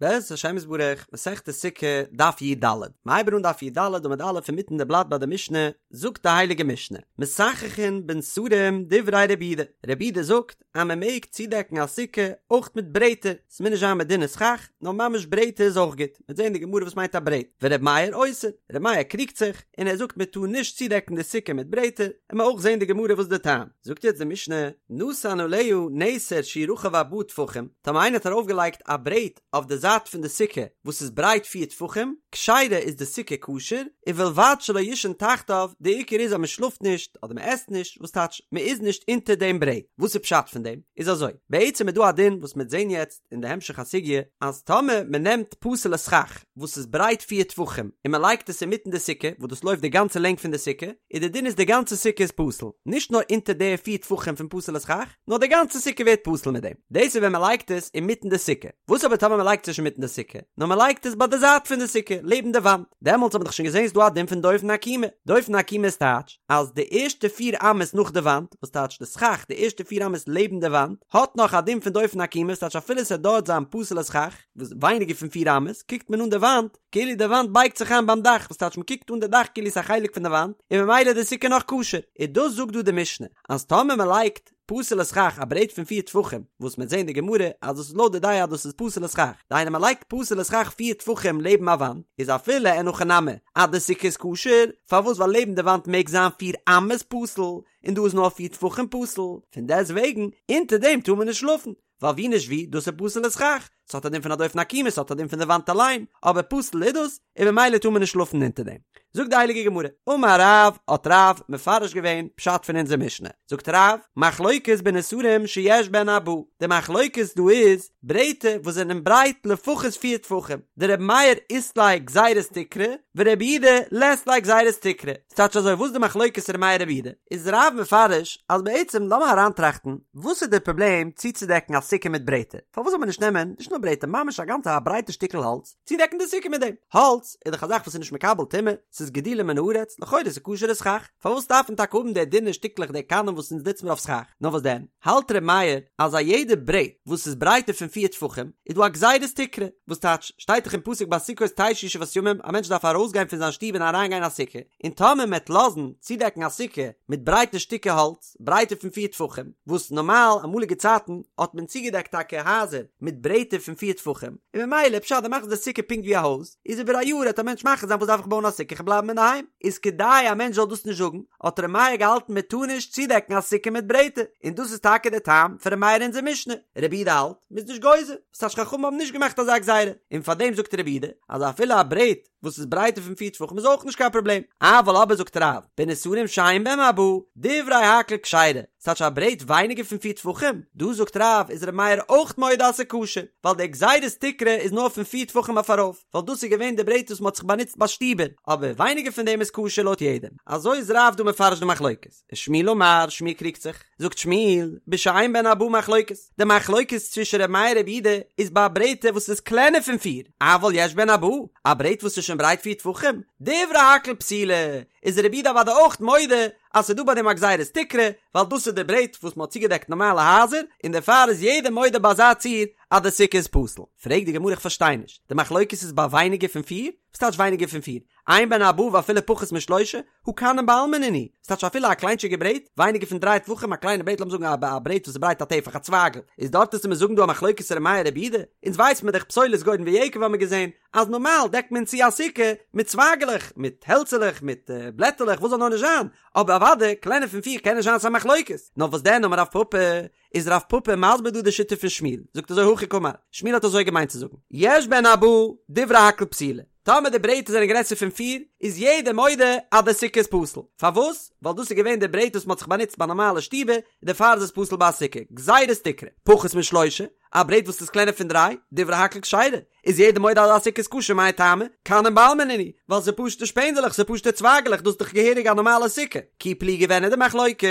בעזרת השם יתברך, מסכת סוכה, דף י"ד. מ'הייבן אן דף י"ד עמוד א' אינמיטן די בלאט ביי די משנה, זאגט די הייליגע משנה, מסככין בנסרים דברי רבי יהודה, רבי יהודה זאגט אז מען מעג צודעקן א סוכה אויך מיט ברעטער, ס'מוז נישט זיין מיט דינע סכך, נאר ממש ברעטער איז אויך גוט, מ'וועט זען אין די גמרא וואס מיינט א ברעט, ורבי מאיר אוסר, רבי מאיר קריגט זיך, און ער זאגט מען טאר נישט צודעקן די סוכה מיט ברעטער, און מ'עט אויך זען די גמרא וואס די טעם. זאגט יעצט די משנה, נתן עליה נסר שהוא רחב ארבעה טפחים, טאמער איינער האט ארויפגעלייגט א ברעט אויף די זייט פון די סוכה וואס איז ברייט פיר טפחים, כשרה איז די סוכה כשר, ובלבד שלא יישן תחתיו, די עיקר איז אז מען שלאפט נישט אדער מען עסט נישט, וואס טייטש מען איז נישט אונטער דעם ברעט, וואס איז פשט פון דעם? איז אזוי, בעצם איז דא א דין וואס מען וועט זען יעצט אין די המשך הסוגיא, אז טאמער מען נעמט פסול'ע סכך וואס איז ברייט פיר טפחים און מען לייגט עס אינמיטן די סוכה וואס דאס לויפט די גאנצע לענג פון די סוכה, איז די דין איז די גאנצע סוכה איז פסול, נישט נאר אונטער די פיר טפחים פון פסול'ע סכך, נאר די גאנצע סוכה ווערט פסול מיט דעם. דאס איז ווען מען לייגט עס אינמיטן די סוכה. וואס אבער טאמער מען לייגט עס נישט אינמיטן די סוכה, נאר מען לייגט עס ביי די זייט פון די סוכה, לעבן די וואנט, דעמאלטס האט מען דאך שוין געזען ס'איז דא א דין פון דופן עקומה. דופן עקומה איז טייטש אז די ערשטע פיר אמות נאך די וואנט, וואס טייטש די סכך, די ערשטע פיר אמות לעבן די וואנט, האט נאך א דין פון דופן עקומה, וואס טייטש אפילו ס'וועט דארט זיין פסול'ע סכך, וואס ווייניגער פון פיר אמות, קוקט מען אן די וואנט, כאילו די וואנט בייגט זיך איין ביים דאך, וואס טייטש מען קוקט אן די דאך כאילו ס'איז א חלק פון די וואנט, און ממילא איז די סוכה נאך כשר. און דאס זאגט דא די משנה, אז טאמער מען לייגט פסול'ע סכך א ברעט פון פיר טפחים, וואס מ'עט זען אין די גמרא אז דאס איז לויט די דעה אז דאס איז פסול'ע סכך, דהיינו מען לייגט פסול'ע סכך פיר טפחים לעבן א וואנט, איז אפילו אין הכי נמי אז די סוכה איז כשר, פארוואס ווייל לעבן די וואנט מעג זיין פיר אמות פסול, און דא איז נאר פיר טפחים פסול, פון דעסט וועגן אונטער דעם טאר מען נישט שלאפן, ווייל ווי נישט ווי, דאס איז פסול'ע סכך, ס'האט א דין פון א דופן עקומה, ס'האט א דין פון די וואנט אליין, אבער פסול איז דאס, און ממילא טאר מען נישט שלאפן אונטער דעם. זאגט די הייליגע גמרא, אמר רב, האט רב מפרש געווען פשט פון אונזער משנה, זאגט רב, מחלוקת בנסרים שיש בהן ארבעה, די מחלוקת דא איז, ברעטער וואס זענען ברייט לפחות פיר טפחים, דרבי מאיר אית ליה גזירת תקרה, ורבי יהודה לית ליה גזירת תקרה, ס'טייטש אזוי וואס די מחלוקת ר' מאיר רבי יהודה? איז רב מפרש אז בעצם לאמיר אריינטראכטן וואס איז די פראבלעם צוצודעקן א סוכה מיט ברעטער? פארוואס זאל מען נישט נעמען נישט נאר ברעטער ממש א גאנצע א ברייטע שטיקל האלץ צודעקן די סוכה מיט דעם? האלץ איז דאך א זאך וואס איז נישט מקבל טומאה, ס'איז גידולו מן הארץ, לכאורה איז עס כשר'ע סכך, פארוואס דארף מען טאקע האבן די דינע שטיקלעך די קנים וואס אונז נוצן מיר אויף סכך? נאר וואס דען? האלט ר' מאיר אז א יעדע ברעט וואס איז ברייטער פון פיר טפחים איז דא א גזירת תקרה, וואס טייטש, שטייט דאך אין פסוק בסוכות תשבו שבעת ימים, א מענטש דארף ארויסגיין פון זיין שטוב און אריינגיין אין א סוכה, און טאמער מ'עט לאזן צודעקן א סוכה מיט ברייטע שטיקער האלץ, ברייטער פון פיר טפחים, וואס נארמאל אמאליגע צייטן האט מען צוגעדעקט טאקע הייזער מיט ברעטער פון פיר טפחים, און ממילא פשט דו מאכסט די סוכה פונקט ווי א הויז, איז איבער א יאר העט א מענטש מחליט זיין וואס דארף איך בויען א סוכה איך בלייב אינדערהיים, איז כדי א מענטש זאל דאס נישט זאגן, האט ר' מאיר געהאלטן מען טאר נישט צודעקן א סוכה מיט ברעטער, און דאס איז טאקע דער טעם פון ר' מאיר אין אונזער משנה, רבי יהודה האלט, מ'איז נישט גוזר, וואס טייטש חכמים האבן נישט געמאכט אזא גזירה, און פארדעם זאגט רבי יהודה אז אפילו א ברעט וואס איז ברייטער פון פיר טפחים איז אויך נישט קיין פראבלעם, אבל אבער זאגט רב, בנסרים שאין בהם ארבעה, דברי הכל כשרה, ס'טייטש א ברעט ווייניגער פון פיר טפחים, דא זאגט רב איז ר' מאיר אויך מודה אז ס'איז כשר, ווייל די גזירת תקרה איז נאר פון פיר טפחים אויף ארויף, ווייל דאס איז געווען די ברעט וואס מ'האט זיך באנוצט ביי שטיבער, אבער ווייניגער פון דעם איז כשר לויט יעדעם. אזוי איז רב דא מפרש די מחלוקת. ושמואל אמר, שמואל קריגט זיך, זאגט שמואל, בשאין בהן ארבעה מחלוקת, די מחלוקת צווישן ר' מאיר רבי יהודה איז ביי א ברעטער וואס איז קלענער פון פיר, אבל יש בהן ארבעה, א ברעט וואס איז שוין ברייט פיר טפחים, דברי הכל פסולה, איז רבי יהודה אוודאי אויך מודה אז ס'איז דא ביי דעם א גזירת תקרה, ווייל דאס איז די ברעט וואס מ'האט צוגעדעקט נארמאלע הייזער, און דערפאר איז יעדער מודה ביי אזא ציור אז די סוכה איז פסול. פרעגט די גמרא איך פארשטיי נישט, די מחלוקת איז ביי ווייניגער פון פיר? וואס טייטש ווייניגער פון פיר? אין בהן ארבעה ואפילו פחות משלושה, הא קנים בעלמא נינהו, וואס טייטש אפילו א קליינטשיגע ברעט, ווייניגער פון דריי טפחים, א קליינע ברעט לאמיר זאגן א ברעט וואס איז ברייט א טפח א צווייגל, איז דארט וועסטו מיר זאגן דא א מחלוקת ר' מאיר רבי יהודה? אונז ווייס מיר דאך פסולת גורן ויקב האמיר געזען אז נארמאל דעקט מען צו א סוכה מיט צווייגעלעך, מיט העלצעלעך, מיט בלעטעלעך, וואס זאל נאר נישט זיין, אבער אוודאי קלענער פון פיר קען נישט זיין ס'א מחלוקת, נאר וואס דען אמר רב פפא, איז רב פפא מסביר דא די שיטה פון שמואל, זאגט אזוי הכי קאמר, שמואל האט אזוי געמיינט צו זאגן, יש בהן ארבעה, דברי הכל פסולה, טאמער די ברעטער זענען גרעסער פון פיר, איז יעדער מודה אז די סוכה איז פסול, פארוואס? ווייל דאס איז געווען די ברעט וואס מען האט זיך באנוצט ביי נארמאלע שטיבער, דערפאר איז עס פסול ביי א סוכה, גזירת תקרה, פחות משלושה, א ברעט וואס איז קלענער פון דריי, דברי הכל כשרה, איז יעדער מודה אז א סוכה איז כשר מאי טעמא, קנים בעלמא נינהו, ווייל ס'איז פשוטע שפענדעלעך, ס'איז פשוטע צווייגעלעך, דאס איז דאך געהעריג א נארמאלע סוכה. כי פליגי ווען איז די מחלוקת?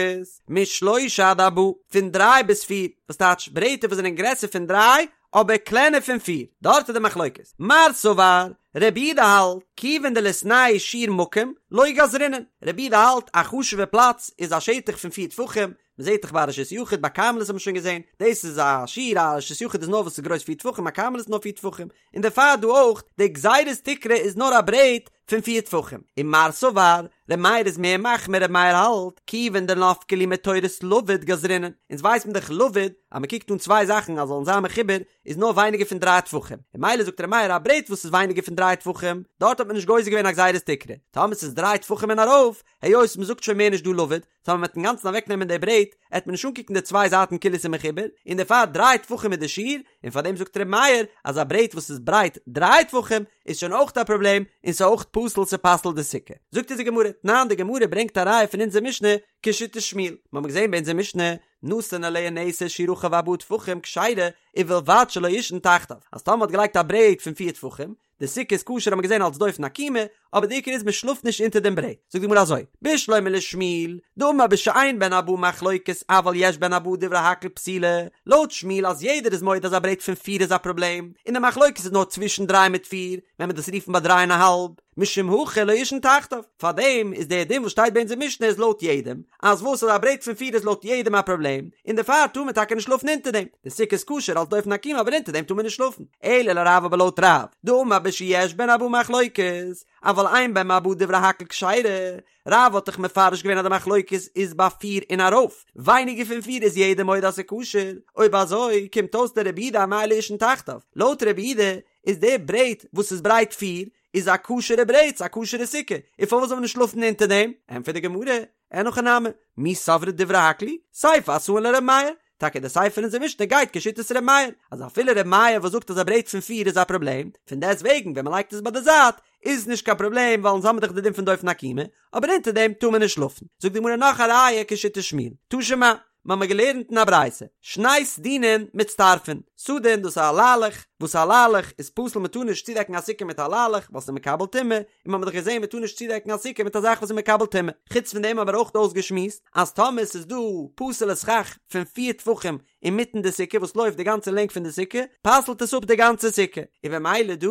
משלושה עד ארבעה, פון דריי ביז פיר, וואס טייטש ברעטער וואס זענען גרעסער פון דריי אבער קלענער פון פיר, דארט איז די מחלוקת. מר סבר. רבי יהודה האלט, כיוון דליתנהו שיעור מקום, לא גזרינן, רבי יהודה האלט א חשוב'ע פלאץ איז א שטח פון פיר טפחים, מען זעט דאך ביי א רשות יחיד ביי כרמלית האט מען שוין געזען, דאס איז א שיעור א רשות יחיד איז נאר וואס איז גרויס פיר טפחים א כרמלית איז נאר פיר טפחים, און דערפאר דא אויך, די גזירת תקרה איז נאר א ברעט פון פיר טפחים. ומר סבר, ר' מאיר איז מער מחמיר ר' מאיר האלט, כיוון דנפקא להו מתורת לבוד גזרינן, אונז ווייס מען דאך לבוד, אז מען קוקט אן צוויי זאכן אז זאלן זיין מחובר, איז נאר ווייניגער פון דריי טפחים, און ממילא זאגט ר' מאיר א ברעט וואס איז ווייניגער פון דריי טפחים, דארט האט מען נישט גוזר געווען א גזירת תקרה, טאמער ס'איז דריי טפחים און ארויף, היות מען זאגט שוין מער נישט דא לבוד, טאמער מ'וועט אינגאנצן אוועק נעמען די ברעט, עט מען נישט אנקוקן די צוויי זייטן כאילו ס'איז מחובר, און דערפאר דריי טפחים איז די שיעור, און פאר דעם זאגט ר' מאיר אז א ברעט וואס איז ברייט דריי טפחים איז שוין אויך א פראבלעם, און ס'איז אויך פסול ס'פסל'ט די סוכה. זאגט אונז די גמרא, תנן די גמרא ברענגט א ראיה פון אונזער משנה כשיטת שמואל, מ'האמיר געזען ביי אונזער משנה, נתן עליה נסר שהוא רחב ארבעה טפחים כשרה, ובלבד שלא יישן תחתיו, אז טאמער מ'האט געלייגט א ברעט פון פיר טפחים, די סוכה איז כשר האט מען געזען אלס דופן עקומה, אבער די עיקר איז מען שלאפט נישט אונטער דעם ברעט. זאגט די גמרא אזוי, בשלמא לשמואל, דאמר בשאין בהן ארבעה מחלוקת אבל יש בהן ארבעה דברי הכל פסולה, לויט שמואל אז יעדער איז מודה אז א ברעט פון פיר איז א פראבלעם, און די מחלוקת איז נאר צווישן דריי מיט פיר, ווען מען דאס רופן ביי דריי און א האלב, משום הכי לא יישן תחתיו, פארדעם איז דער דין וואס שטייט ביי אונזער משנה איז לויט יעדעם, אז וואס אז א ברעט פון פיר איז לויט יעדעם א פראבלעם, און דערפאר טאר מען טאקע נישט שלאפן אונטער דעם, די סוכה איז כשר אלס דופן עקומה אבער אונטער דעם טאר מען נישט שלאפן, אלא לרב אבער לויט רב, דאמר בשיש בהן ארבעה מחלוקת, אבל אין בהן ארבעה דברי הכל כשרה, רב האט דאך מפרש געווען אז די מחלוקת איז ביי פיר און ארויף, ווייניגער פון פיר איז יעדער מודה אז ס'איז כשר, אויב אזוי קומט אויס לרבי יהודה אמאי לא יישן תחתיו, לויט רבי יהודה איז די ברעט וואס איז ברייט פיר איז א כשר'ע ברעט, ס'איז א כשר'ע סוכה, און פארוואס זאל מען נישט שלאפן אונטער דעם? ענטפערט די גמרא, אין הכי נמי, מי סברת דברי הכל היא, סיפא אתאן לר' מאיר, טאקע די סיפא פון אונזער משנה גייט כשיטת ר' מאיר, אז אפילו ר' מאיר וואס זאגט אז א ברעט פון פיר איז א פראבלעם, פון דעסט וועגן ווען מ'לייגט עס ביי די זייט איז נישט קיין פראבלעם ווייל אונז האמיר דאך די דין פון דופן עקומה, אבער אונטער דעם טאר מען נישט שלאפן. זאגט די גמרא נאך א ראיה כשיטת שמואל, תא שמע, מ'האמיר געלערנט אין א ברייתא, שני סדינין מצטרפין, סדין דאס איז א ליילעך, וואס א ליילעך איז פסול מ'טאר נישט צודעקן א סוכה מיט א ליילעך ווייל ס'איז מקבל טומאה, און מ'האמיר דאך געזען מ'טאר נישט צודעקן א סוכה מיט א זאך וואס איז מקבל טומאה. חוץ פון דעם האבן מיר אויך אויסגעשמועסט אז טאמער ס'איז דא פסול'ע סכך פון פיר טפחים אינמיטן די סוכה וואס לויפט די גאנצע לענג פון די סוכה, פסל'ט עס אפ די גאנצע סוכה, און במילא דא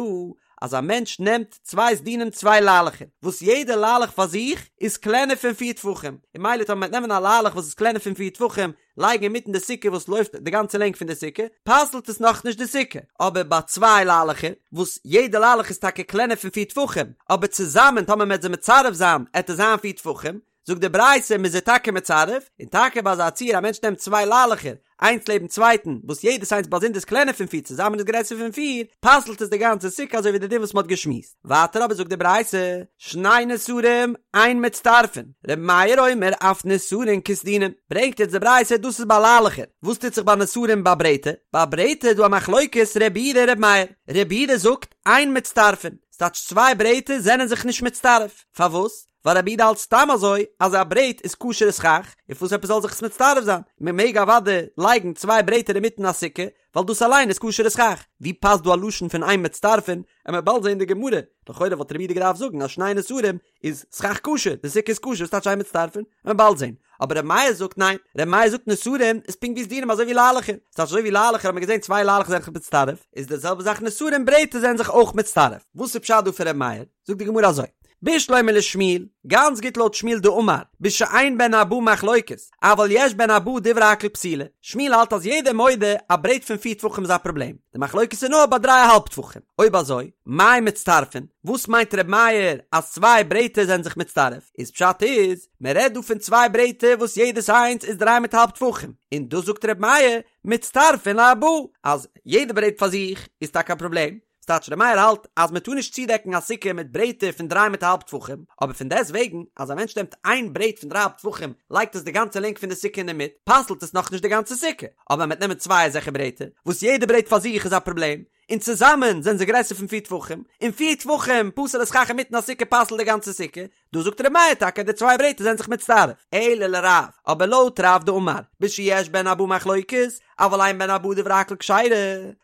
אז א מענטש נעמט צוויי סדינים צוויי ליילעכער, וואס יעדע ליילעך פאר זיך איז קלענער פון פיר טפחים, און ממילא טאמער מ'וועט נעמען א ליילעך וואס איז קלענער פון פיר טפחים, לייגן אינמיטן די סוכה וואס לויפט די גאנצע לענג פון די סוכה, פסל'ט עס נאכנישט די סוכה. אבער ביי צוויי ליילעכער, וואס יעדע ליילעך איז טאקע קלענער פון פיר טפחים, אבער צוזאמען טאמער מ'וועט זיי מצרף זיין, עט עס זיין פיר טפחים, זאגט די ברייתא מ'איז זיי טאקע מצרף, און טאקע ביי אזא ציור א מענטש נעמט צוויי ליילעכער, איינס לעבן צווייטן, וואס יעדעס איינס באזונדער איז קלענער פון פיר צוזאמען איז גרעסער פון פיר, פסל'ט עס די גאנצע סוכה אזוי ווי די דין וואס מ'האט געשמועסט. ווייטער אבער זאגט די ברייתא, שני נסרים אין מצטרפין, ר' מאיר אומר אף נסרין כסדינין, ברענגט יעצט די ברייתא דאס איז ביי ליילעכער, וואס טוט זיך ביי נסרים ביי ברעטער? ביי ברעטער איז דא א מחלוקת ר' יהודה ר' מאיר, ר' יהודה זאגט אין מצטרפין, ס'טייטש צוויי ברעטער זענען זיך נישט מצטרף, פארוואס? ווייל רבי יהודה האלט סתם אזוי אז א ברעט איז כשר'ע סכך, און פארוואס עפעס זאל זיך עס מצטרף זיין? מען מעג אוודאי לייגן צוויי ברעטער אינמיטן א סוכה, ווייל דאס אליין איז כשר'ע סכך. ווי פאסט דא א לשון פון אין מצטרפין? עמיר באלד זען די גמרא, לכאורה וואלט רבי יהודה געדארפט זאגן אז שני נסרים איז סכך כשר, די סוכה איז כשר, וואס טייטש אין מצטרפין? עמיר באלד זען. אבער רבי מאיר זאגט ניין, רבי מאיר זאגט נסרים איז פונקט ווי סדינים אזוי ווי ליילעכער, ס'טייטש אזוי ווי ליילעכער האט מען געזען צוויי ליילעכער זענען זיך מצטרף, איז די זעלבע זאך נסרים ברעטער זענען זיך אויך מצטרף. וואס איז פשט דא פון רבי מאיר? זאגט די גמרא אזוי, בשלמא לשמואל, גאנץ גוט לויט שמואל דאמר, בשאין בהן ארבעה מחלוקת, אבל יש בהן ארבעה דברי הכל פסולה, שמואל האלט אז יעדער מודה א ברעט פון פיר טפחים איז א פראבלעם, די מחלוקת איז נאר ביי דריי א האלב טפחים, אויב אזוי, מאי מצטרפין, וואס מיינט ר' מאיר אז צוויי ברעטער זענען זיך מצטרף, איז פשט איז, מען רעדט דא פון צוויי ברעטער וואס יעדעס איינס איז דריי מיט האלב טפחים, און דאס זאגט ר' מאיר, מצטרפין לארבעה, אז יעדע ברעט פאר זיך איז טאקע א פראבלעם, ס'טייטש ר' מאיר האלט אז מען טאר נישט צודעקן א סוכה מיט ברעטער פון דריי מיט א האלב טפחים, אבער פון דעסט וועגן אז א מענטש נעמט איין ברעט פון דריי האלב טפחים לייגט עס די גאנצע לענג פון די סוכה אינדערמיט פסל'ט עס נאכנישט די גאנצע סוכה, אבער מען וועט נעמען צוויי אזעלכע ברעטער וואס יעדע ברעט פאר זיך איז א פראבלעם, און צוזאמען זענען זיי גרעסער פון פיר טפחים, און פיר טפחים פסול'ע סכך אינמיטן א סוכה פסל'ט די גאנצע סוכה, דא זאגט ר' מאיר טאקע די צוויי ברעטער זענען זיך מצטרף, אלא לרב, אבער לויט רב דאמר, בשיש בהן ארבעה מחלוקת, אבל אין בהן ארבעה דברי הכל כשרה,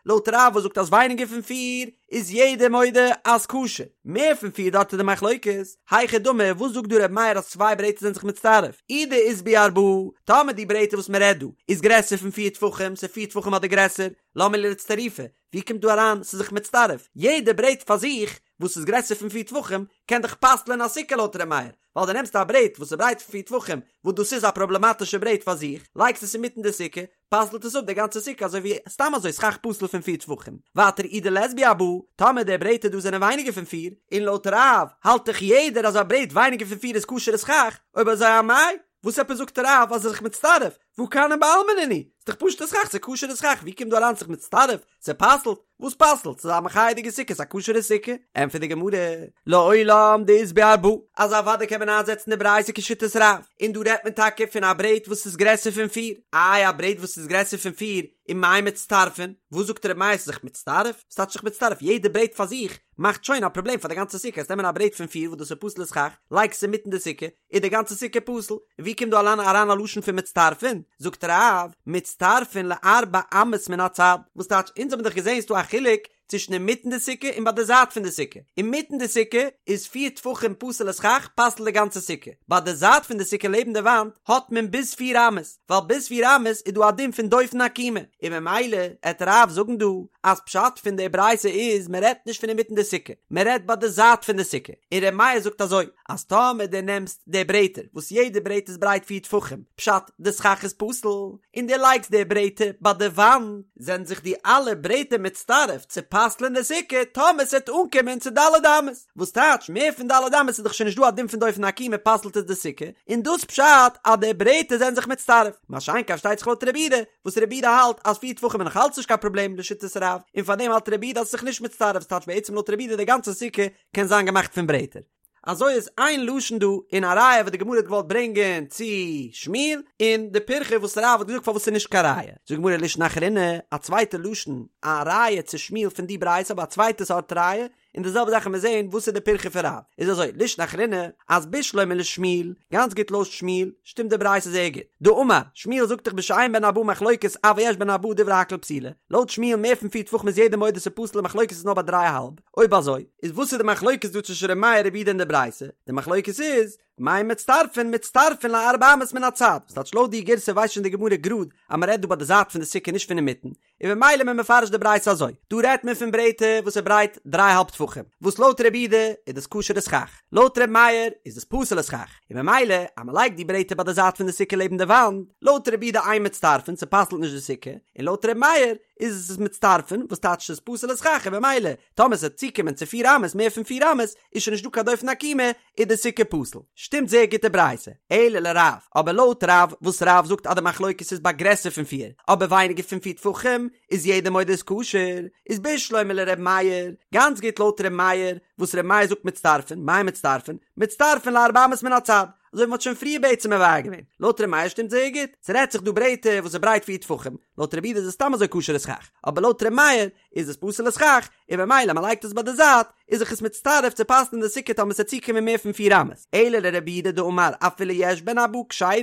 לויט רב וואס זאגט אז ווייניגער פון פיר איז יעדער מודה אז כשר, מער פון פיר דארט איז די מחלוקת, היכי דמי וואס זאגט דא ר' מאיר אז צוויי ברעטער זענען זיך מצטרף, אי דאית בהו ארבעה, טאמער די ברעטער וואס מען רעדט דא איז גרעסער פון פיר טפחים, ס'איז פיר טפחים אדער גרעסער, למה לי לאצטרופי, ווי קומט דא אריין ס'איז זיך מצטרף, יעדע ברעט פאר זיך. וואס איז גרעסער פון פיר טפחים קען דאך פסל'ען א סוכה לויט ר' מאיר, ווייל דו נעמסט א ברעט וואס איז ברייט פון פיר טפחים וואס דאס איז א פראבלעמאטישע ברעט פאר זיך, לייגסט עס אינמיטן די סוכה, פסל'ט עס אפ די גאנצע סוכה אזוי ווי סתם אזוי סכך פסול פון פיר טפחים. ווייטער אי דלית בהו ארבעה, טאמער די ברעטער דא זענען ווייניגער פון פיר, און לויט רב האלט דאך יעדער אז א ברעט ווייניגער פון פיר איז כשר'ע סכך, אויב אזוי אמאי, וואס עפעס זאגט רב אז עס איז זיך מצטרף, והא כנים בעלמא נינהו, ס'איז דאך פשוט'ע סכך, ס'איז כשר'ע סכך, ווי קומט דא אריין זיך מצטרף, ס'פסל'ט, וואס פסל'ט? ס'איז א מחייה'דיגע סוכה, ס'איז א כשר'ע סוכה. ענטפערט די גמרא, לעולם דאית בהו ארבעה, אז אוודאי קען מען איינזעצן די ברייתא כשיטת רב, און דא רעדט מען טאקע פון א ברעט וואס איז גרעסער פון פיר, איי א ברעט וואס איז גרעסער פון פיר, ומאי מצטרפין, וואס זאגט ר' מאיר ס'איז זיך מצטרף? וואס טייטש זיך מצטרף? יעדע ברעט פאר זיך מאכט שוין א פראבלעם פאר די גאנצע סוכה, וועסט נעמען א ברעט פון פיר וואס דאס איז פסול'ע סכך, לייגסט עס אינמיטן די סוכה, איז די גאנצע סוכה פסול, און ווי קומט דא אליין אריין א לשון פון מצטרפין? זאגט רב, מצטרפין לארבע אמות מן הצד, וואס טייטש, אונז האבן דאך געזען ס'דא א חילוק צווישן אינמיטן די סוכה און ביי די זייט פון די סוכה, אינמיטן די סוכה איז פיר טפחים פסול'ע סכך פסל'ט די גאנצע סוכה, ביי די זייט פון די סוכה לעבן די וואנט האט מען ביז פיר אמות, ווייל ביז פיר אמות איז דא א דין פון דופן עקומה, און ממילא עט רב זאגן דא אז פשט פון די ברייתא איז מען רעדט נישט פון אינמיטן די סוכה, מען רעדט ביי די זייט פון די סוכה, און ר' מאיר זאגט אזוי, אז טאמער דו נעמסט די ברעטער וואס יעדע ברעט איז ברייט פיר טפחים, פשט די סכך איז פסול, און דו לייגסט די ברעטער ביי די וואנט, זענען זיך די אלע ברעטער מצטרף צו פסל'ען די סוכה טאמער ס'עט אנקומען צו ד' אמות, וואס טייטש מער פון ד' אמות איז דאך שוין נישט דא א דין פון דופן עקומה פסל'ט עס די סוכה, און דאס פשט אז די ברעטער זענען זיך מצטרף, מה שאין כן פארשטייט זיך לויט רבי יהודה, וואס רבי יהודה האלט אז פיר טפחים איז נאך אלץ נישט קיין פראבלעם לשיטת רב, און פארדעם האלט רבי יהודה אז עס איז זיך נישט מצטרף, ס'טייטש בעצם לויט רבי יהודה די גאנצע סוכה קען זיין געמאכט פון ברעטער. אזוי איז איין לשון דא און א ראיה וואס די גמרא האט געוואלט ברענגען צו שמואל, און די פירכא וואס רב האט געזאגט פארוואס ס'איז נישט קיין ראיה. זאגט די גמרא לישנא אחרינא, א צווייטע לשון, א ראיה צו שמואל פון די ברייתא אבער א צווייטע סארט ראיה, און די זעלבע זאך וועלן מיר זעהן וואס איז די פירכא פון רב. איז אזוי, לישנא אחרינא, אז בשלמא לשמואל, גאנץ גוט לויט שמואל, שטימט די ברייתא זייער גוט. דאמר, שמואל זאגט דאך בשאין בהן ארבעה מחלוקת אבל יש בהן ארבעה דברי הכל פסולה. לויט שמואל מער פון פיר טפחים איז יעדער מודה ס'פסול די מחלוקת איז נאר ביי דריי א האלב. אויב אזוי, איז וואס איז די מחלוקת דא צווישן ר' מאיר רבי יהודה און די ברייתא? די מחלוקת איז, מאי מצטרפין מצטרפין לארבע אמות מן הצד, וואס טייטש לויט די גירסא ווייסט שוין די גמרא גראד אז מען רעדט דא ביי די זייט פון די סוכה נישט פון אינמיטן, און ממילא מען מפרש די ברייתא אזוי, דא רעדט מען פון ברעטער וואס איז ברייט דריי האלב טפחים, וואס לויט רבי יהודה איז דאס כשר'ע סכך, לויט ר' מאיר איז דאס פסול'ע סכך, און ממילא אז מען לייגט די ברעטער ביי די זייט פון די סוכה לעבן די וואנט, לויט רבי יהודה אין מצטרפין ס'פסל'ט נישט די סוכה, און לויט ר' מאיר איז עס מצטרפין, וואס טייטש ס'איז פסול'ע סכך און ממילא טאמער ס'וועט צוקומען צו פיר אמות מער פון פיר אמות איז שוין נישט דא קיין דופן עקומה איז די סוכה פסול. שטימט זייער גוט די ברייתא. אלא לרב, אבער לויט רב וואס רב זאגט אז די מחלוקת איז ביי גרעסער פון פיר אבער ווייניגער פון פיר טפחים איז יעדער מודה איז כשר, איז בשלמא לר' מאיר, גאנץ גוט לויט ר' מאיר וואס ר' מאיר זאגט מצטרפין, מאי מצטרפין? מצטרפין לארבע אמות מן הצד. אזוי ווי מ'האט שוין פריער בעצם מבאר געווען. לויט ר' מאיר שטימט זייער גוט. ס'רעדט זיך דא ברעטער וואס איז ברייט פיר טפחים, לויט רבי יהודה איז עס סתם אזוי כשר'ע סכך, אבער לויט ר' מאיר איז עס פסול'ע סכך, און ממילא מ'לייגט עס ביי די זייט, איז זיך עס מצטרף צו פסל'ן די סוכה טאמער ס'עט צוקומען מער פון פיר אמות, אלא לרבי יהודה דאמר אפילו יש בהן ארבעה כשרה,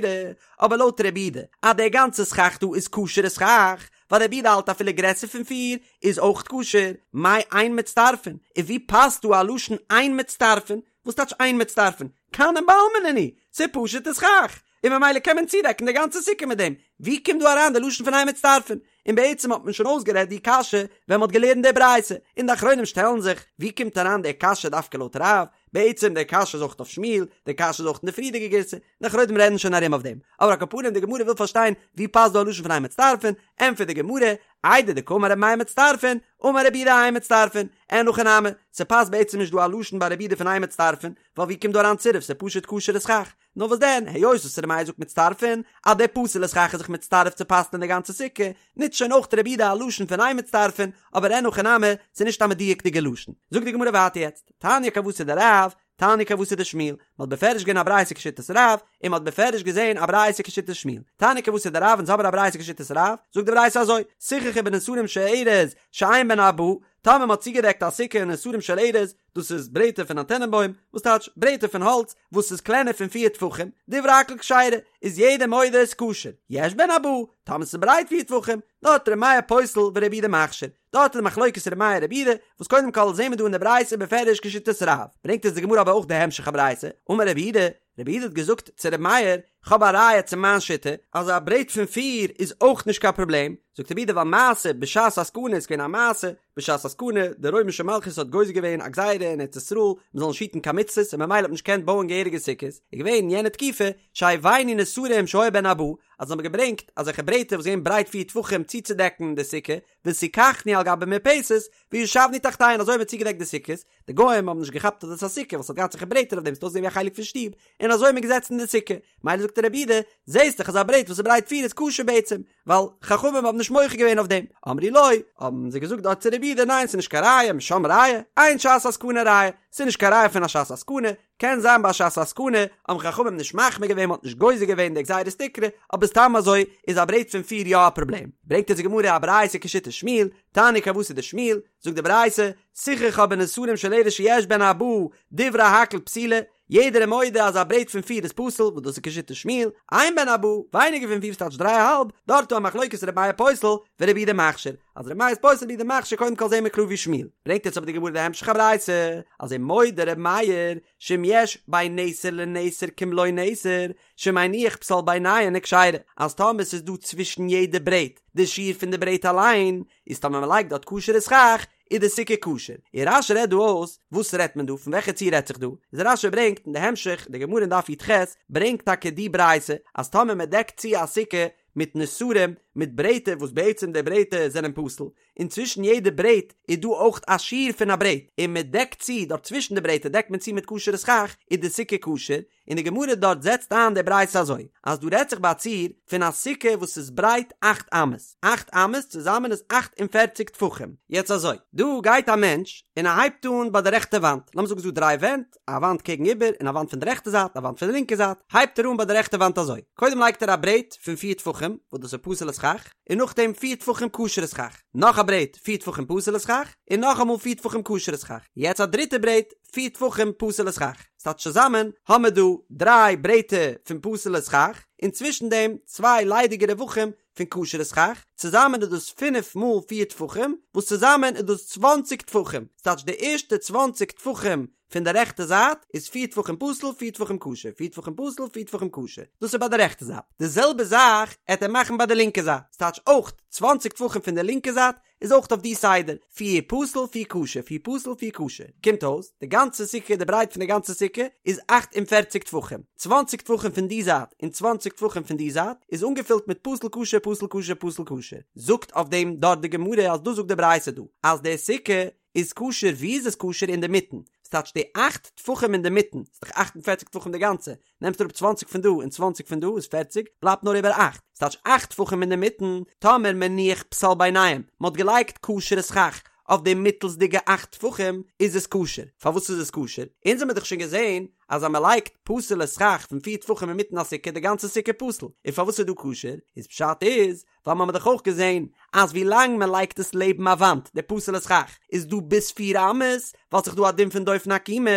אבער לויט רבי יהודה אז דער גאנצע סכך דא איז כשר'ע סכך, ווייל רבי יהודה האלט אפילו גרעסער פון פיר איז אויך כשר, מאי אין מצטרפין, און ווי פאסט דא א לשון אין מצטרפין, וואס טייטש אין מצטרפין? כנים בעלמא נינהו, ס'איז פשוט'ע סכך, און ממילא קען מען צודעקן די גאנצע סוכה מיט דעם, ווי קומט דא אריין די לשון פון אין מצטרפין? און בעצם האט מען שוין אויסגערעדט די קשיא ווען מ'האט געלערנט די ברייתא, און די אחרונים שטעלן זיך, ווי קומט אריין די קשיא דווקא לויט רב? בעצם די קשיא איז אויך אויף שמואל, די קשיא איז אויך אין די פריערדיגע גירסא, די אחרונים רעדן שוין ארום אויף דעם, אבער על כל פנים די גמרא וויל פארשטיין ווי פאסט דא א לשון פון אין מצטרפין, ענטפערט די גמרא, איידי דקאמר רבי מאיר מצטרפין, אמר רבי יהודה אין מצטרפין, אין הכי נמי, ס'פאסט בעצם נישט דא א לשון ביי רבי יהודה פון אין מצטרפין, ווייל ווי קומט דא אריין צירוף ס'איז פשוט כשר'ע סכך, נאר וואס דען, היות וואס רבי מאיר זאגט מצטרפין, אז דער פסול'ע סכך איז זיך מצטרף צו פסל'ען די גאנצע סוכה, נוצט שוין אויך רבי יהודה א לשון פון אין מצטרפין, אבער אין הכי נמי, ס'איז נישט א מדויק'דיגע לשון. זאגט די גמרא ווייטער יעצט, תניא כוותיה דרב, תניא כוותיה דשמואל, מען האט בפירוש געזען א ברייתא כשיטת רב, און מען האט בפירוש געזען א ברייתא כשיטת שמואל. תניא כוותיה דרב אונז האבן א ברייתא כשיטת רב, זאגט די ברייתא אזוי, סיככו בנסרים של ארז שאין בהן ארבעה, טאמער מען האט צוגעדעקט א סוכה אין נסרים של ארז, דאס איז ברעטער פון א טענענבוים, וואס טייטש ברעטער פון האלץ וואס איז קלענער פון פיר טפחים, דברי הכל כשרה, איז יעדער מודה איז כשר, יש בהן ארבעה, טאמער ס'איז ברייט פיר טפחים, דארט ר' מאיר פוסל ורבי יהודה מכשיר. דארט איז די מחלוקת ר' מאיר רבי יהודה, וואס קודם כל זעהן מיר דא אין די ברייתא בפירוש כשיטת רב, ברענגט עס די גמרא אבער אויך די המשך הברייתא, אמר רבי יהודה, רבי יהודה האט געזאגט צו רבי מאיר, כ'האב א ראיה צו מיין שיטה אז א ברעט פון פיר איז אויך נישט קיין פראבלעם, זאגט רבי יהודה ווייל מעשה בשעת הסכנה איז געווען א מעשה בשעת הסכנה, די רוימישע מלכות האט גוזר געווען א גזירה אין ארץ ישראל מען זאל נישט היטן קיין מצוות און ממילא האט מען נישט געקענט בויען געהעריגע סוכות, איז געווען אין יענע תקופה שהביאנו נסרים שהיו בהן ארבעה, אז זיי האבן געברענגט אזעלכע ברעטער וואס געווען ברייט פיר טפחים צוצודעקן די סוכה, וסיככנו על גבי מרפסת, וישבנו תחתיהן אזוי האט מען צוגעדעקט די סוכות, די גוים האבן נישט געכאפט אז דאס איז א סוכה ווייל ס'האט געהאט אזעלכע ברעטער אויף דעם ס'האט אויסגעזען ווי א חלק פון שטוב, און אזוי איז מען געזעצן אין די סוכה, מילא זאגט רבי יהודה, זעהסט דאך אז א ברעט וואס איז ברייט פיר איז כשר בעצם, ווייל חכמים האבן נישט מוחה געווען אויף דעם, אמרו לו, האבן זיי געזאגט דארט צו רבי יהודה ניין ס'איז נישט קיין ראיה, משם ראיה, אין שעת הסכנה ראיה, ס'איז נישט קיין ראיה פון א שעת הסכנה, קען זיין ביי שעת הסכנה האבן חכמים נישט מחמיר געווען מ'האט נישט גוזר געווען די גזירת תקרה, אבער סתם אזוי איז א ברעט פון פיר יא א פראבלעם. ברענגט אונז די גמרא א ברייתא כשיטת שמואל, תניא כוותיה דשמואל, זאגט די ברייתא, סיככה בנסרים של ארז שיש בהן ארבעה, דברי הכל פסולה, יעדער איז מודה אז א ברעט פון פיר איז פסול, וואס דאס איז כשיטת שמואל, אין בהן ארבעה, ווייניגער פון פיר ס'טייטש דריי א האלב, דארט איז א מחלוקת ר' מאיר פוסל ורבי יהודה מכשיר, אז ר' מאיר איז פוסל רבי יהודה מכשיר קודם כל זעהן מיר קלאר ווי שמואל, ברענגט יעצט אבער די גמרא די המשך הברייתא, אז ומודה ר' מאיר שאם יש בין נסר לנסר כמלא נסר, שמניח פסל ביניהן וכשרה, אז טאמער ס'איז דא צווישן יעדע ברעט די שיעור פון די ברעט אליין, איז טאמער מ'לייגט דארט כשר'ע סכך, איז די סוכה כשר. און רש"י רעדט דא אויס, וואס רעדט מען דא? פון וועלכע ציור רעדט זיך דא? איז רש"י ברענגט אין די המשך, די גמרא אין דף י"ח ברענגט טאקע די ברייתא, אז טאמער מען דעקט צו א סוכה מיט נסרים, מיט ברעטער וואס בעצם די ברעטער זענען פסול, און צווישן יעדע ברעט איז דא אויך א שיעור פון א ברעט, און מען דעקט צו דארט צווישן די ברעטער דעקט מען צו מיט כשר'ע סכך, איז די סוכה כשר, און די גמרא דארט זעצט איין די ברייתא אזוי, אז דא רעדט זיך ביי א ציור פון א סוכה וואס איז ברייט אכט אמות, אכט אמות צוזאמען איז 48 טפחים, יעצט אזוי, דא גייט א מענטש און ער הייבט אן ביי די רעכטע וואנט, לאמיר זאגן ס'איז דא דריי ווענט, א וואנט קעגן איבער און א וואנט פון די רעכטע זייט, א וואנט פון די לינקע זייט, הייבט ער אן ביי די רעכטע וואנט אזוי, קודם לייגט ער א ברעט פון פיר טפחים, וואס דאס איז פסול'ע סכך, און נאכדעם פיר טפחים כשר'ע סכך, נאך א ברעט פיר טפחים פסול'ע סכך, און נאכאמאל פיר טפחים כשר'ע סכך, יעצט א דריטע ברעט, פיר טפחים פסול'ע סכך, ס'טייטש צוזאמען האמער דא דריי ברעטער פון פסול'ע סכך, און צווישן דעם צוויי ליידיגע רווחים פון כשר'ע סכך, צוזאמען איז דאס פינף מאל פיר טפחים, וואס צוזאמען איז דאס צוואנציג טפחים, ס'טייטש די ערשטע צוואנציג טפחים פון די רעכטע זייט איז פיר טפחים פסול, פיר טפחים כשר, פיר טפחים פסול, פיר טפחים כשר, דאס איז ביי די רעכטע זייט, די זעלבע זאך עט ער מאכן ביי די לינקע זייט, ס'טייטש אויך צוואנציג טפחים פון די לינקע זייט איז אויך אויף די סדר, פיר פסול פיר כשר פיר פסול פיר כשר, קומט אויס די גאנצע סוכה די ברייט פון די גאנצע סוכה איז 48 טפחים, 20 טפחים פון די זייט און 20 טפחים פון די זייט איז אנגעפילט מיט פסול כשר פסול כשר פסול כשר, זאגט אויף דעם דארט די גמרא אז דאס זאגט די ברייתא דא אז די סוכה איז כשר ווי איז עס כשר אינדערמיטן, ס'טייטש די אכט טפחים אינדערמיטן, ס'איז דאך 48 טפחים די גאנצע, נעמסט אראפ צוואנציג פון דא און צוואנציג פון דא איז פערציג, בלייבט נאר איבער אכט, ס'טייטש אכט טפחים אינדערמיטן, טאמער מניח פסל ביניהם, מ'האט געלייגט כשר'ע סכך אויף די מיטלסדיגע אכט טפחים, איז עס כשר. פארוואס איז עס כשר? אונז האמיר דאך שוין געזען אז אז מ'לייגט פסול'ע סכך פון פיר טפחים אינמיטן א סוכה די גאנצע סוכה פסול, און פארוואס איז דא כשר? איז פשט איז ווייל מ'האמיר דאך אויך געזען אז ווי לאנג מען לייגט עס לעבן א וואנט די פסול'ע סכך איז דא ביז פיר אמות ווייל ס'איז דא א דין פון דופן עקומה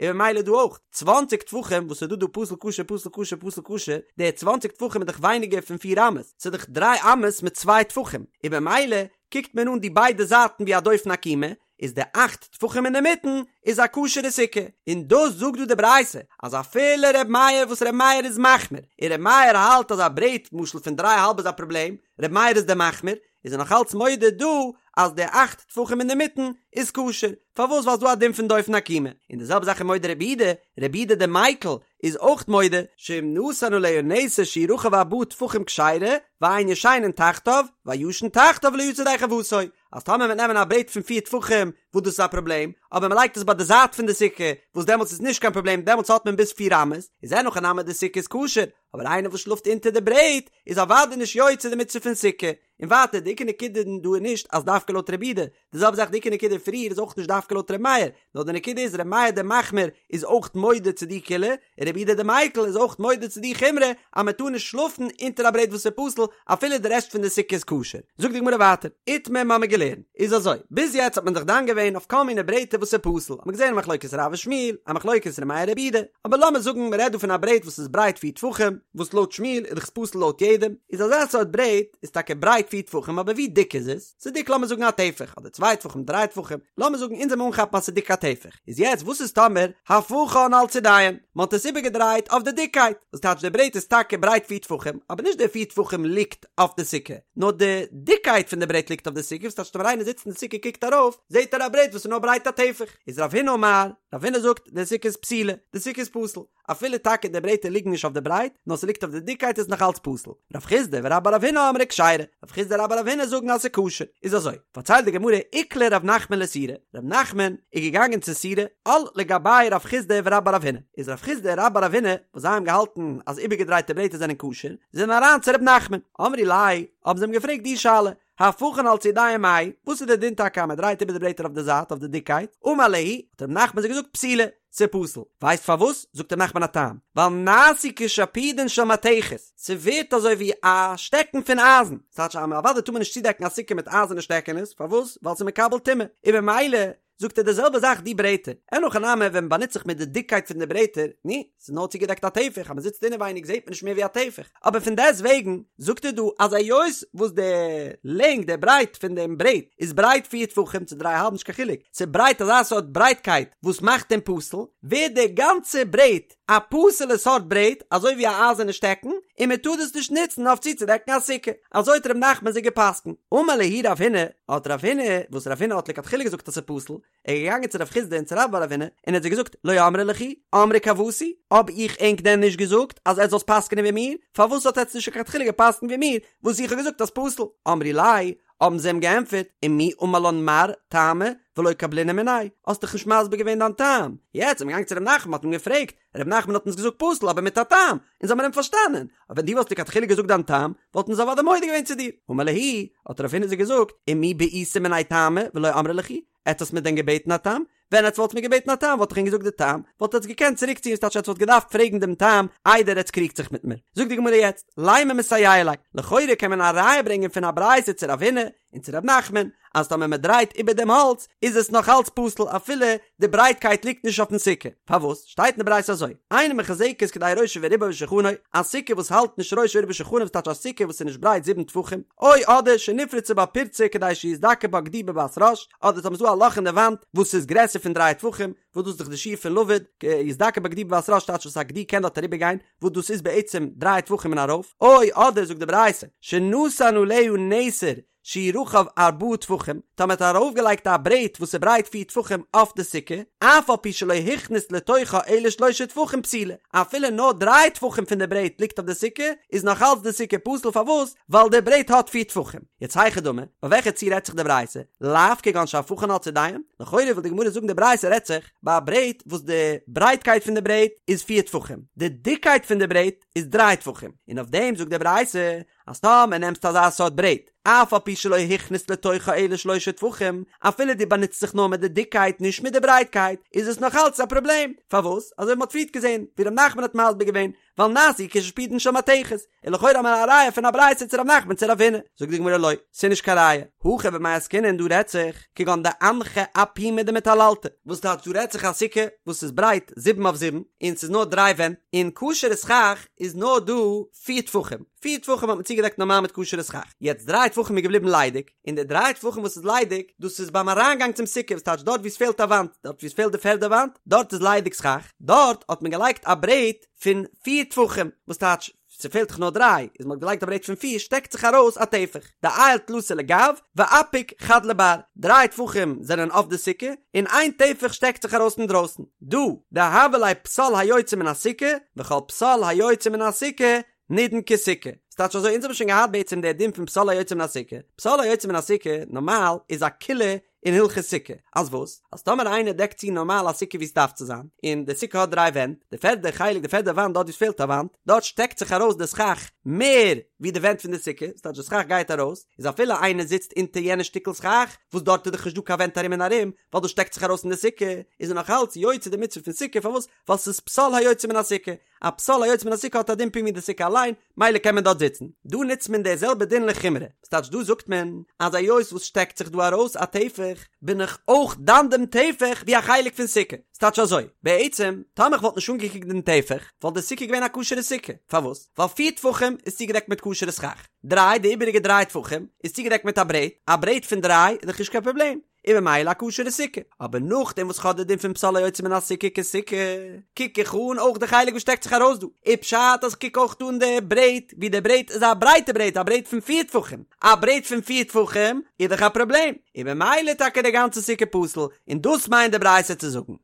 און ממילא דא אויך צוואנציג טפחים וואס איז דא דא פסול כשר פסול כשר פסול כשר די צוואנציג טפחים איז דאך ווייניגער פון פיר אמות ס'איז דאך דריי אמות מיט צוויי טפחים און ממילא קוקט מען אן די ביידע זייטן ווי א דופן עקומה איז די אכט טפחים אינדערמיטן איז א כשר'ע סוכה, און דאס זאגט דא די ברייתא אז אפילו ר' מאיר וואס ר' מאיר איז מחמיר, און ר' מאיר האלט אז א ברעט למשל פון דריי האלב איז א פראבלעם, ר' מאיר איז דער מחמיר, איז ער נאך אלץ מודה דא אז די אכט טפחים אינדערמיטן איז כשר, פארוואס ווייל ס'דא א דין פון דופן עקומה, און די זעלבע זאך איז מודה רבי יהודה, רבי יהודה דער מיקל איז אויך מודה, שאם נתן עליה נסר שהוא רחב ארבעה טפחים כשרה, ואין ישנין תחתיו, והישן תחתיו לא יצא ידי חובתו, אז טאמער מ'וועט נעמען א ברעט פון פיר טפחים וואס דאס איז א פראבלעם, אבער מ'לייגט עס ביי די זייט פון די סוכה וואס דעמאלטס איז נישט קיין פראבלעם דעמאלטס האט מען ביז פיר אמות, איז אין הכי נמי די סוכה איז כשר, אבער איינער וואס שלאפט אונטער די ברעט איז אוודאי נישט יוצא די מצוה פון סוכה. און ווייטער די עיקר נקודה דא איז נישט אז דווקא לויט רבי יהודה, די זעלבע זאך די עיקר נקודה פריער איז אויך נישט דווקא לויט רבי מאיר, נאר די נקודה איז רבי מאיר דער מחמיר איז אויך מודה צו די קולא, און רבי יהודה דער מיקל איז אויך מודה צו די חומרא אז מען טאר נישט שלאפן אונטער א ברעט וואס איז פסול אפילו די רעשט פון די סוכה איז כשר. זאגט די גמרא ווייטער, איתמר מ'האמיר געלערנט איז אזוי, ביז יעצט האט מען דאך דן געווען. געווען אויף כל מיני ברעטער וואס איז פסול, האט מען געזען א מחלוקת רב ושמואל, א מחלוקת ר' מאיר רבי יהודה, אבער לאמיר זאגן מען רעדט דא פון א ברעט וואס איז ברייט פיר טפחים, וואס לויט שמואל איז דאך עס פסול לויט יעדעם, איז אזא סארט ברעט איז טאקע ברייט פיר טפחים אבער ווי דיק איז עס? ס'איז דיק לאמיר זאגן א טפח, אדער צוויי טפחים דריי טפחים, לאמיר זאגן אונז וועלן אנכאפן אז ס'איז דיק א טפח, איז יעצט וואס איז טאמער הפכן על צידיהן, מ'האט עס איבערגעדרייט אויף די דיקקייט, וואס טייטש די ברעט איז טאקע ברייט פיר טפחים, אבער נישט די פיר טפחים ליגט אויף די סוכה, נאר די דיקקייט פון די ברעט ליגט אויף די סוכה, וואס טייטש טאמער איינער זיצט אין די סוכה קוקט ארויף, זעט ער א ברעט וואס איז נאר ברייט א טפח, איז רב הונא אמר, רב הונא זאגט, די סוכה איז פסולה, די סוכה איז פסול. אפילו טאקע די ברעטער ליגן נישט אויף די ברייט, נאר ס'ליגט אויף די דיקקייט איז נאך אלץ פסול. רב חסדא ורבה בר רב הונא אמרי כשרה, רב חסדא און רבה בר רב הונא זאגן אז ס'איז כשר. איז אזוי, פארציילט די גמרא איקלע רב נחמן לסורא, רב נחמן איז געגאנגען צו סורא, על לגביה רב חסדא ורבה בר רב הונא, איז רב חסדא און רבה בר רב הונא, וואס זיי האבן געהאלטן אז איבערגעדרייטע ברעטער זענען כשר, זענען אריין צו רב נחמן, אמרי ליה, האבן זיי אים געפרעגט די שאלה, הפכן על צידיהן מהו, וואס איז די דין טאקע אז מען דרייט איבער די ברעטער אויף די זייט אויף די דיקקייט? אמר להו, האט רב נחמן זיי געזאגט פסולה, ס'איז פסול. ווייסט פארוואס? זאגט רב נחמן א טעם, ווייל נעשו כשפודין של מתכת, ס'ווערט אזוי ווי א שטעקן פון אייזן, ס'טייטש אז אוודאי טאר מען נישט צודעקן א סוכה מיט אייזערנע שטעקענעס, פארוואס? ווייל ס'איז מקבל טומאה, און במילא זאגט ער די זעלבע זאך די ברעטער, אין הכי נמי ווען מ'באנוצט זיך מיט די דיקקייט פון די ברעטער, נו, ס'איז נאר צוגעדעקט א טפח, אז מ'זיצט אינעווייניג זעט מען נישט מער ווי א טפח, אבער פון דעסט וועגן זאגט ער דא אז היות וואס די לענג די ברייט פון דעם ברעט איז ברייט פיר טפחים צו דריי האלב נישט קיין חילוק, ס'איז ברייט אזא סארט ברייטקייט וואס מאכט אים פסול, ווערט די גאנצע ברעט א פסול'ע סארט ברעט אזוי ווי א אייזערנע שטעקן, און מען טאר דאס נישט נוצן אויף צוצודעקן א סוכה. אזוי האט ר' נחמן זיי גע'פסק'נט. אמר להו רב הונא, האט רב הונא, וואס רב הונא האט לכתחילה געזאגט אז ס'איז פסול, ער איז געגאנגען צו רב חסדא און צו רבה בר רב הונא, און ער האט זיי געזאגט, לא אמרי לכו, אמרי כוותי, האב איך ענק דען נישט געזאגט אז עטס זאלטס פסק'נען ווי מיר? פארוואס האט עטס נישט לכתחילה גע'פסק'נט ווי מיר, וואס איך האב געזאגט אז פסול? אמרי ליה, האבן זיי אים געענטפערט, ומי אמר לן מר טעמא ולא קבלינן מיניה, האסט דאך נישט מסביר געווען דיין טעם, יעצט איז מען געגאנגען צו ר' נחמן האט מען געפרעגט, ר' נחמן האט אונז געזאגט פסול אבער מיט א טעם, אונז האבן אים פארשטאנען, אבער ווען דו וואלסט לכתחילה געזאגט דיין טעם, וואלטן אונז אוודאי מודה געווען צו דיר. אמר להו, האט רב הונא זיי געזאגט, ומי בעיתו מינאי טעמא ולא אמרי לכו, עטס האטס מיר דען געבעטן א טעם? ווען עטס וואלטס מיר געבעטן א טעם וואלט איך ענק געזאגט די טעם, וואלט עטס געקענט צוריק ציען ס'טייטש עטס וואלט געדארפט פרעגן דעם טעם איידער עטס קריגט זיך מיט מיר. זאגט די גמרא יעצט, לימא מסייע ליה, לכאורה קען מען א ראיה ברענגען פון א ברייתא צו רב הונא און צו רב נחמן, אז טאמער מען דרייט איבער דעם האלץ איז עס נאך אלץ פסול אפילו די ברייטקייט ליגט נישט אויפן סוכה. פארוואס? שטייט אין די ברייתא אזוי, אינה מחוזקת כדי ראשו ורובו ושולחנו, א סוכה וואס האלט נישט ראשו ורובו ושולחנו וואס טייטש א סוכה וואס איז נישט ברייט זיבן טפחים, או אדער שנפרצה בה פרצה כדי שיזדקר בה גדי בבת ראש, אדער טאמער ס'איז דא א לאך אין די וואנט וואס איז גרעסער פון דריי טפחים, וואס דאס איז דאך די שיעור פון לבוד, יזדקר בה גדי בבת ראש טייטש וואס א גדי קען דארט אריבער גיין, וואס דאס איז בעצם דריי טפחים און ארויף, או אדער זאגט די ברייתא, שנתן עליה נסר שהוא רחב ארבעה טפחים, טאמער האט ער ארויפגעלייגט א ברעט וואס איז ברייט פיר טפחים אויף די סוכה, אף על פי שלא הכניס לתוכה אלא שלושה טפחים פסולה, אפילו נאר דריי טפחים פון די ברעט ליגט אויף די סוכה, איז נאך אלץ די סוכה פסול, פארוואס? ווייל די ברעט האט פיר טפחים. יעצט היכי דמי, ביי וועלכע ציור רעדט זיך די ברייתא? לאו כגון שהפכן על צידיהן? לכאורה וויל די גמרא זאגן די ברייתא רעדט זיך ביי א ברעט וואס די ברייטקייט פון די ברעט איז פיר טפחים, די דיקקייט פון די ברעט איז דריי טפחים, און אויף דעם זאגט די ברייתא אז טאמער נעמסטו אזא סארט ברעט, אף על פי שלא הכניס לתוכה אלא שלושה טפחים, אפילו דו באנוצט זיך נאר מיט די דיקקייט נישט מיט די ברייטקייט, איז עס נאך אלץ א פראבלעם, פארוואס? אזוי ווי מ'האט פריערט געזען, ווי ר' נחמן האט מסביר געווען, ווייל נעשו כשפודין של מתכת, און לכאורה האט מען א ראיה פון א ברייתא צו ר' נחמן צו רב הונא, זאגט די גמרא לא, ס'איז נישט קיין ראיה, הכא במאי עסקינן דא רעדט זיך, כגון דאנחה אפומא דמטללתא, וואס טייטש דא רעדט זיך א סוכה וואס איז ברייט זיבן אויף זיבן, און ס'איז נאר דריי ווענט, און כשר'ע סכך איז נאר דא פיר טפחים, פיר טפחים האט מען צוגעדעקט נארמאל מיט כשר'ע סכך, יעצט דריי טפחים איז געבליבן ליידיג, און די דריי טפחים וואס איז ליידיג, דאס איז ביים אריינגאנג צום סוכה, וואס טייטש דארט וואו עס פעלט א וואנט, דארט וואו עס פעלט די פערדע וואנט, דארט איז ליידיג סכך, דארט האט מען געלייגט א ברעט פון פיר טפחים, וואס טייטש ס'פעלט דאך נאר דריי, איז מ'האט געלייגט א ברעט פון פיר שטעקט זיך ארויס א טפח, דעייל תלתא לגו ואפיק חד לבר, דריי טפחים זענען אויף די סוכה, און איין טפח שטעקט זיך ארויס אינדרויסן, דא דהוה ליה פסל היוצא מן הסוכה, וכל פסל היוצא מן הסוכה נידון כסוכה. ס'טייטש אזוי, אונז האבן שוין געהאט בעצם די דין פון פסל היוצא מן הסוכה, פסל היוצא מן הסוכה נארמאל איז א קולא אין הלכות סוכה, אז וואס? אז טאמער איינער דעקט צו נארמאל א סוכה ווי ס'דארף צו זיין, און די סוכה האט דריי ווענט, די פערדע חלק די פערדע וואנט דארט ווי ס'פעלט א וואנט, דארט שטעקט זיך ארויס די סכך מער ווי די ווענט פון די סוכה, ס'טייטש די סכך גייט ארויס, איז אפילו איינער זיצט אונטער יענע שטיקל סכך, וואס דארט איז דאך נישט דא קיין ווענט ארום און ארום, ווייל דאס שטעקט זיך ארויס אין די סוכה, איז ער נאך אלץ יוצא די מצוה פון סוכה, פארוואס? ווייל ס'איז פסל היוצא מן הסוכה. א פסל היוצא מן הסוכה האט א דין פונקט ווי די סוכה אליין, מילא קען מען דארט זיצן. דא נוצט מען די זעלבע דין לחומרא, ס'טייטש דא זאגט מען אז היות וואס שטעקט זיך דא ארויס א טפח, בין איך אויך דן דעם טפח ווי א חלק פון סוכה. ס'טייטש אזוי, בעצם, טאמער איך וואלט נישט אנגעקוקט דעם טפח, וואלט די סוכה געווען א כשר'ע סוכה. פארוואס? ווייל פיר טפחים איז צוגעדעקט מיט כשר'ע סכך. דריי, די איבעריגע דריי טפחים, איז צוגעדעקט מיט א ברעט. א ברעט פון דריי איז דאך נישט קיין פראבלעם. און ממילא א כשר'ע סוכה. אבער נאכדעם וואס כ'האב די דין פון פסל היוצא מן הסוכה כסוכה, קוק איך אן אויך די חלק וואס שטעקט זיך ארויס דא. איז פשט אז כ'קוק אויך אן די ברעט, ווי די ברעט איז א ברייטע ברעט, א ברעט פון פיר טפחים. א ברעט פון פיר טפחים איז דאך א פראבלעם. און ממילא טאקע די גאנצע סוכה פסול, און דאס מיינט די ברייתא צו זאגן.